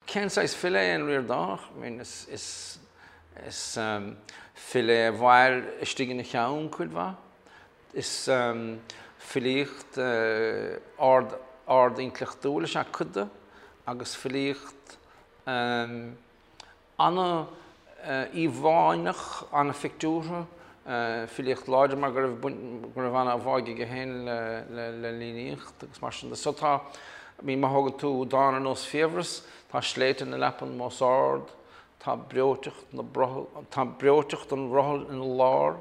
Cén saghas file é an Ríordánach? I mean, is, is, is file é a mhair istigh ina cheann cuid mhaith. Is filíocht ard, ard-intleachtúil is ea cuid de agus filíocht An-íomháineach, an-phictiúrtha, filíocht láidir mar go raibh go raibh an-bháidh aige féin le líníocht agus mar sin de. So tá, I mean má thógann tú dán ar nós Fiabhras, tá sléibhte na leapan mós ard, tá breoiteacht na brothall, tá breoiteacht an bhrothail ina lár,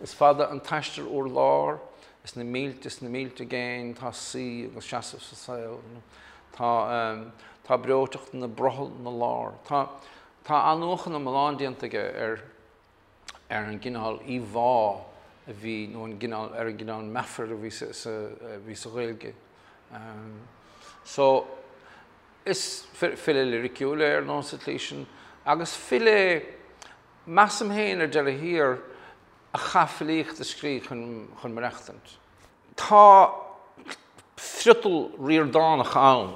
Is fada an t-aistear úr lár, is na mílte is na mílte i gcéin, tá suí agus seasamh sa saol, tá, tá breoiteacht na brothall 'na lár. Tá, tá athnuachan iomlán déanta aige ar, ar an gcineál íomhá a bhí, nó an gcineál, ar an gcineál meafair a bhí sa, sa, a bhí sa Ghaeilge. So, is file liriciúil é ar ndóigh sa tslí sin, agus file é, Measaim féin ar deireadh thiar a chaith filíocht a scríobh chun maireachtaint. Tá friotal Ríordánach ann.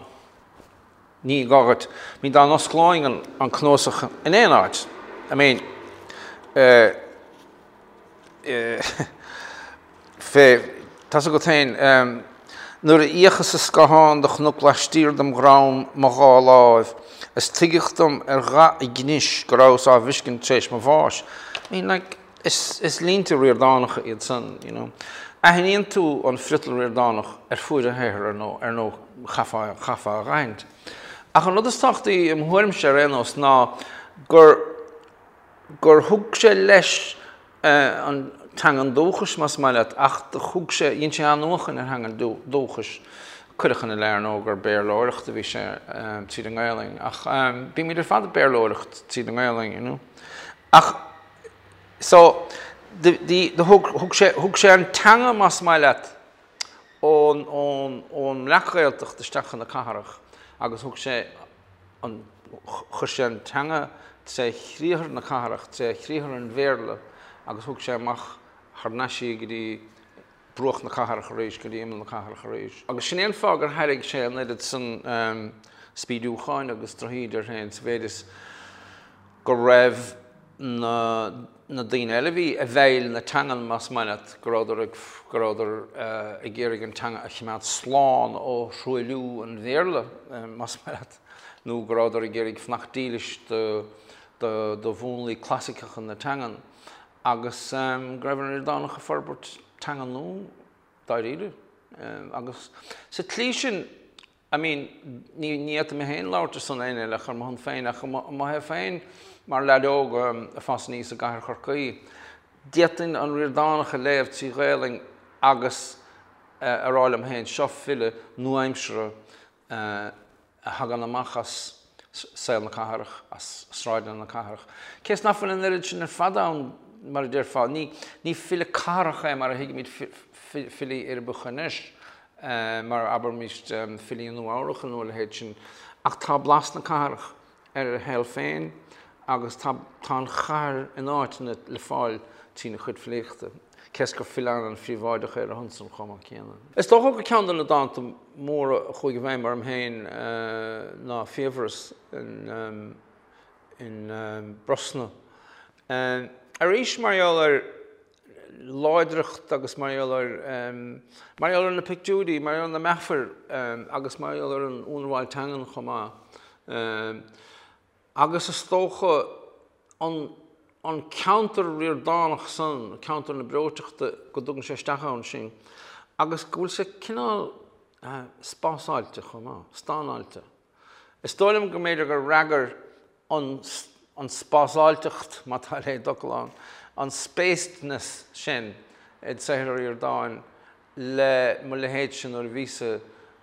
Ní gá dhuit, I mean dá n-osclóinn an cnuasach in aon áit, I mean eh, eh, fé, tá's agat féin, Nuair a fhéachas sa scáthán do chonac laistiar dem dhrom mo dhá láimh, is tuigeadh dom ar dhath a gcnis go rabhas á bhfeiscint tar éis mo bháis. I mean, like, is, is línte Ríordánacha iad san, you know. Aithníonn tú an friotal Ríordánach ar fuaid a shaothair, ar ndóigh, ar ndóigh, chaithfeá, chaithfeá a dh'aithint. Ach an rud is tábhachtaí i mo thuairimse ar aon nós ná gur, gur thug sé leis an teangain dúchais, más maith leat, ach do thug sé, dhein sé athnuachan ar theangain dúchais. Cuireadh ina leith, ar ndóigh, gur Béarlóireacht a bhí sé tríd an nGaelainn, ach bímid ar fad ag Béarlóireacht tríd an nGaelainn, you know. Ach, so, do, do thug, thug sé, thug sé an teanga, más maith leat, ón, ón, ón mBreac-Ghaeltacht isteach chun na cathrach agus thug sé an, chuir sé an teanga tré chriathar na cathrach, tré chriathar an Bhéarla agus thug sé amach thar n-ais í go dtí bruach na cathrach arís, go dtí imeall na cathrach arís. Agus sin é an fáth gur thairrig sé an oiread san spídiúcháin agus drochíde air féin sa mhéid is go raibh na na daoine eile a bhí i bhfeighil na teangan, más maith leat, go rabhadar ag, go rabhadar ag iarraidh an teanga a choimeád slán ó thruailliú an Bhéarla, más maith leat, nó go rabhadar ag iarraidh fanacht dílis do, do, do mhúnlaí clasaiceacha na teangan, agus go raibh an Ríordánach ag forbairt teanga nua, dáiríre. Agus sa tslí sin, I mean, ní fhéadfaidh mé féin labhairt ar son éinne eile ach ar mo shon féin, ach i mo thaobh féin, mar leaid óg ag fás aníos i gcathair Chorcaí, d'fhéadfainn an Ríordánach a léamh trí Ghaelainn agus a rá liom féin, seo file nua-aimseartha a thagann amach as saol na cathrach, as sráideanna na cathrach. Cé is nach bhfuil an oiread sin ar fad ann, mar a déarfá, ní file cathrach é mar a thuigimid filí uirbeacha anois. mar abraimis filí Nua-Eabhrac nó a leithéid sin, ach tá blas na cathrach ar a shaol féin agus tá tá an chathair in áiteanna le fáil trína chuid filíochta, cé is gur file an-phríobháideach é ar a shon san chomh maith céanna. Is dócha gur ceann de na dánta móra a chuaigh i bhfeidhm orm féin ná Fiabhras in in Brosna. Arís mar gheall ar láidreacht agus mar gheall ar, mar gheall ar na pictiúirí, mar gheall ar na meafair agus mar gheall ar an ionramháil teangan chomh maith. Agus is dócha an, an ceantar Ríordánach san, ceantar na breoiteachta, go dtugann sé isteach ann sinn agus go bhfuil sé cineál spásáilte chomh maith, stánáilte. Is dóigh liom go mb'fhéidir gur fhreagair an an spásáilteacht, má tá a leithéid d'fhocal ann, an spacedness sin i saothar an Ríordáin le mo leithéidse nuair a bhíos-sa,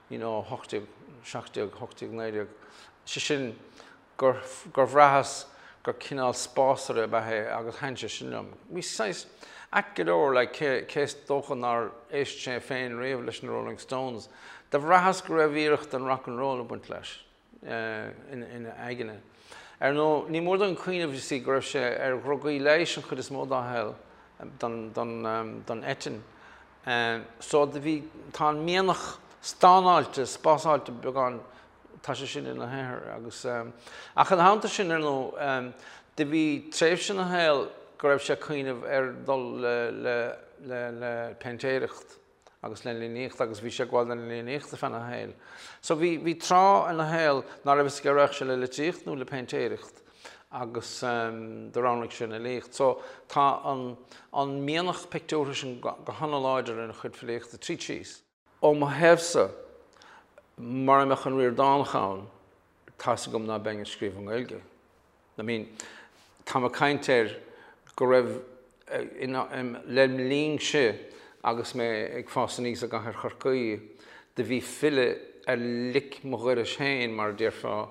you know, 18, 17, 18, 19, sé sin gur, gur bhraitheas gur cineál spásaire ab ea é agus thaitin sé sin liom. Bhí saghas ait go leor, like, cé, cé is dócha nár éist sé féin riamh leis na Rolling Stones, do bhraitheas go raibh iarracht den rock and roll ag baint leis. ina aigne. Ar ndóigh, ní mór dúinn cuimhneamh, you see, go raibh sé ar dhrugaí leighis an chuid is mó dá shaol, don eitinn. So do bhí, tá an mianach stánáilte, spásáilte beagán Tá sé sin ina shaothar agus, ach ina theannta sin, ar ndóigh, do bhí tréimhse ina shaol go raibh sé ag cuimhneamh ar dul le, le, le, le péintéireacht agus le líníocht agus bhí sé ag gabháil don líníocht ar feadh a shaoil. So bhí, bhí tráth ina shaol ná raibh fhios aige raghadh sé le litríocht nó le péintéireacht agus do roghnaigh sé an fhilíocht. So tá an, an mianach pictiúrtha sin go hana-láidir ina chuid filíochta tríd síos. Ó mo thaobhsa, mura mbeadh an Ríordánach ann, tá's agam ná beinn ag scríobh i nGaeilge. I mean, táim ag caint ar go raibh, lem linnse agus mé ag fás aníos i gcathair Chorcaí, do bhí file ar lic mo dhorais féin, mar a déarfá,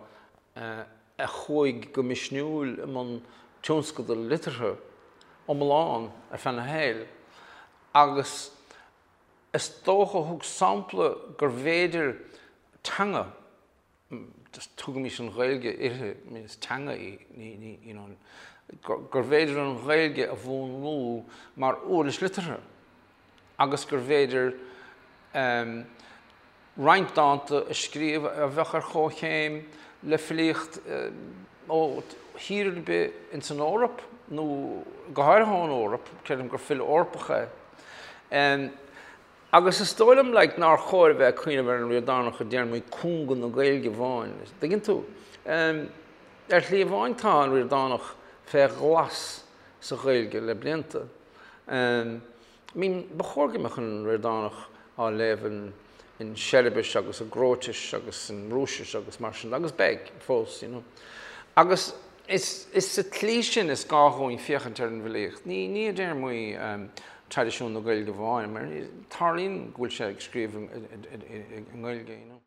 a chuaigh go misniúil i mbun tionscadal liteartha iomlán ar feadh a shaoil agus is dócha a thug sampla gurbh fhéidir teanga, just tugaimis an Ghaeilge uirthi, I mean is teanga í, ní, ní, you know, gurbh fhéidir an Ghaeilge a mhúnlú mar uirlis liteartha agus gurbh fhéidir um, roinnt dánta a scríobh a bheadh ar chomhchéim le filíocht ó thír ar bith ins an Eoraip, nó go háirithe ón Eoraip, creidim gur file Eorpach é. Agus is dóigh liom like nár chóir a bheith ag cuimhneamh ar an Ríordánach i dtéarmaí cúnga na Gaeilge amháin, dtuigeann tú? Ar shlí amháin tá an Ríordánach fé ghlas sa Ghaeilge le blianta. I mean, ba chóir go mbeadh an Ríordánach á léamh in Seiribis agus i gCróitis agus in Rúisis agus mar sin, agus beidh fós, you know. Agus is sa tslí sin is gá dhúinn féachaint ar an bhfilíocht, ní ní i dtéarmaí traidisiún na Gaeilge amháin, mar tarlaíonn go bhfuil sé ag scríobh i nGaeilge, you know.